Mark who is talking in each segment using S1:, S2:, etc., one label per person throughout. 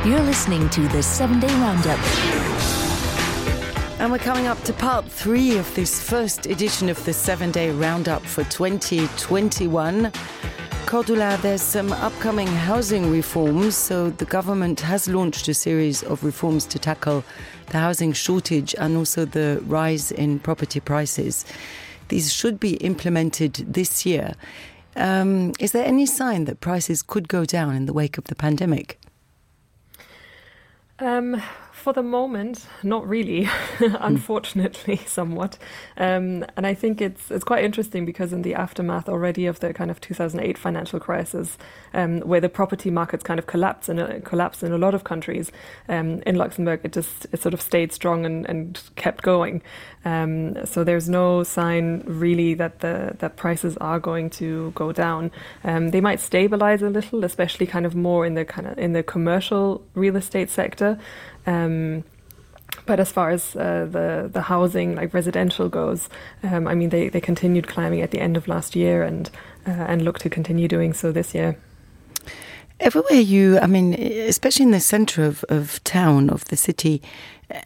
S1: You're listening to the 7-Day Roundup.
S2: And we're coming up to part 3 of this first edition of the 7-Day Roundup for 2021. Cordula, there's some upcoming housing reforms. So the government has launched a series of reforms to tackle the housing shortage and also the rise in property prices. These should be implemented this year. Is there any sign that prices could go down in the wake of the pandemic?
S3: For the moment, not really, unfortunately, somewhat. And I think it's quite interesting because in the aftermath already of the kind of 2008 financial crisis, where the property markets kind of collapsed in a lot of countries, in Luxembourg it sort of stayed strong and kept going. So there's no sign really that prices are going to go down. They might stabilize a little, especially kind of more in the commercial real estate sector. But as far as the housing, like residential goes, I mean, they continued climbing at the end of last year and look to continue doing so this year.
S2: Everywhere especially in the centre of town, of the city,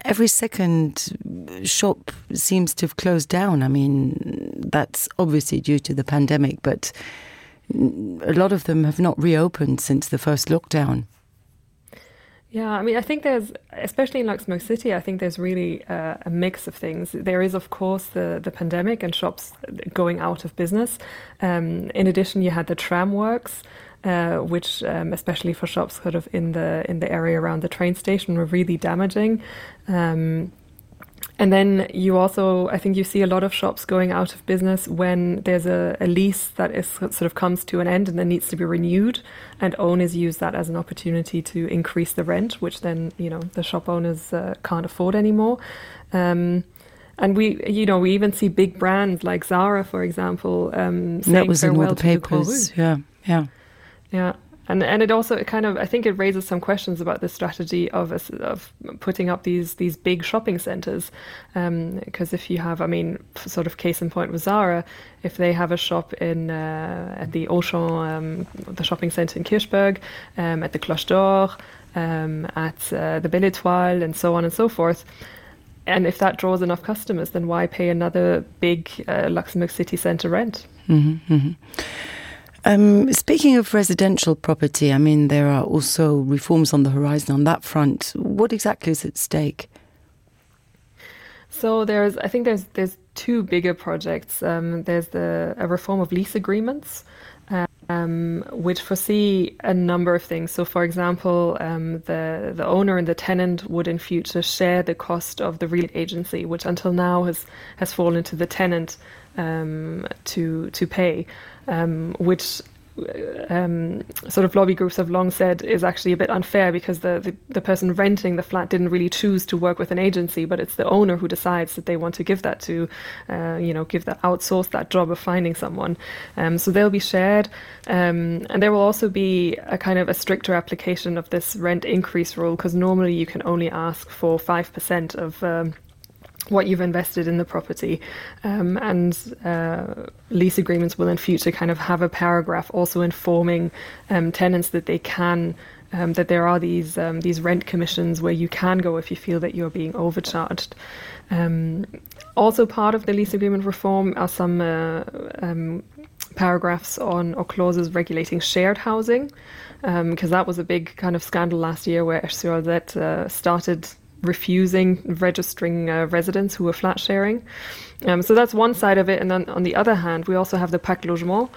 S2: every second shop seems to have closed down. I mean, that's obviously due to the pandemic, but a lot of them have not reopened since the first lockdown.
S3: Yeah, I mean, I think there's, especially in Luxembourg City, I think there's really a mix of things. There is, of course, the pandemic and shops going out of business. In addition, you had the tram works, which, especially for shops sort of in the area around the train station, were really damaging. And then you also, I think you see a lot of shops going out of business when there's a lease that is sort of comes to an end and then needs to be renewed, and owners use that as an opportunity to increase the rent, which then, the shop owners can't afford anymore. And we even see big brands like Zara, for example, saying
S2: that was in all
S3: farewell
S2: the
S3: to
S2: papers.
S3: the
S2: Yeah.
S3: And it also I think it raises some questions about the strategy of putting up these big shopping centres, because if you have, sort of case in point with Zara, if they have a shop in at the Auchan, the shopping centre in Kirchberg, at the Cloche d'Or, at the Belle Étoile, and so on and so forth. And if that draws enough customers, then why pay another big Luxembourg city centre rent?
S2: Mm-hmm, mm-hmm. Speaking of residential property, there are also reforms on the horizon on that front. What exactly is at stake?
S3: So I think there's two bigger projects. There's a reform of lease agreements, which foresee a number of things. So, for example, the owner and the tenant would in future share the cost of the real agency, which until now has fallen to the tenant to pay, which sort of lobby groups have long said is actually a bit unfair, because the person renting the flat didn't really choose to work with an agency, but it's the owner who decides that they want to give that to, outsource that job of finding someone. So they'll be shared. And there will also be a kind of a stricter application of this rent increase rule, because normally you can only ask for 5% of what you've invested in the property, and lease agreements will in future kind of have a paragraph also informing tenants that they can, that there are these rent commissions where you can go if you feel that you're being overcharged. Also part of the lease agreement reform are some paragraphs on or clauses regulating shared housing, because that was a big kind of scandal last year where SURZ started refusing registering residents who were flat sharing. So that's one side of it. And then on the other hand, we also have the Pacte Logement,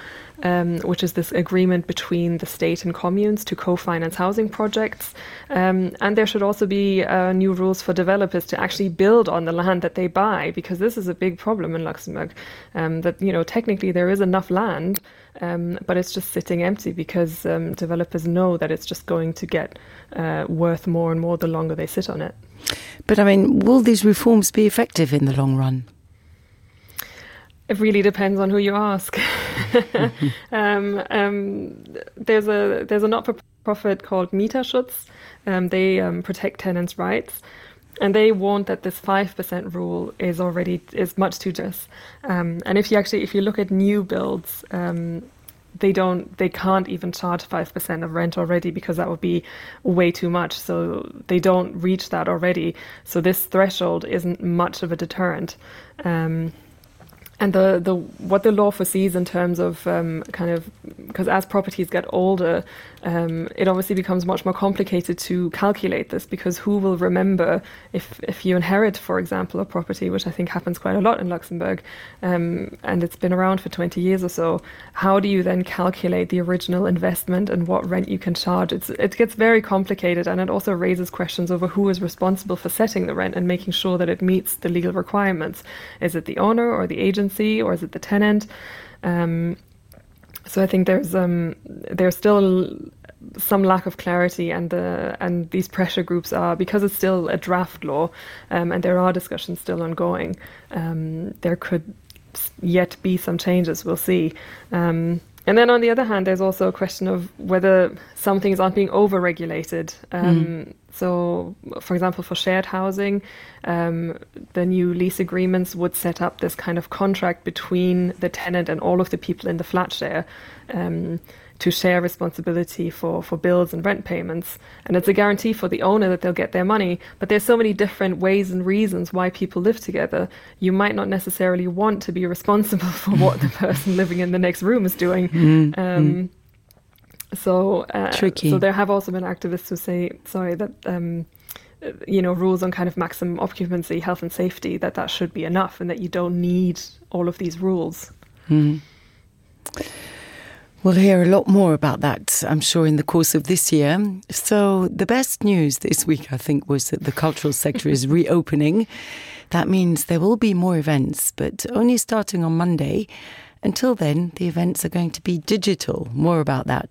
S3: which is this agreement between the state and communes to co-finance housing projects. And there should also be new rules for developers to actually build on the land that they buy, because this is a big problem in Luxembourg, that, technically there is enough land, but it's just sitting empty because developers know that it's just going to get worth more and more the longer they sit on it.
S2: But will these reforms be effective in the long run?
S3: It really depends on who you ask. There's a not-for-profit called Mieterschutz. They protect tenants' rights, and they warned that this 5% rule is much too generous. And if you look at new builds, they can't even charge 5% of rent already, because that would be way too much. So they don't reach that already. So this threshold isn't much of a deterrent. And what the law foresees in terms of because as properties get older, it obviously becomes much more complicated to calculate this, because who will remember if you inherit, for example, a property, which I think happens quite a lot in Luxembourg, and it's been around for 20 years or so. How do you then calculate the original investment and what rent you can charge? It gets very complicated, and it also raises questions over who is responsible for setting the rent and making sure that it meets the legal requirements. Is it the owner or the agency, or is it the tenant? So I think there's still some lack of clarity, and these pressure groups are, because it's still a draft law, and there are discussions still ongoing. There could yet be some changes. We'll see. And then on the other hand, there's also a question of whether some things aren't being over-regulated. So, for example, for shared housing, the new lease agreements would set up this kind of contract between the tenant and all of the people in the flat share to share responsibility for bills and rent payments. And it's a guarantee for the owner that they'll get their money. But there's so many different ways and reasons why people live together. You might not necessarily want to be responsible for what the person living in the next room is doing.
S2: Tricky.
S3: So there have also been activists who say, that rules on kind of maximum occupancy, health and safety, that should be enough, and that you don't need all of these rules.
S2: We'll hear a lot more about that, I'm sure, in the course of this year. So the best news this week, I think, was that the cultural sector is reopening. That means there will be more events, but only starting on Monday. Until then, the events are going to be digital. More about that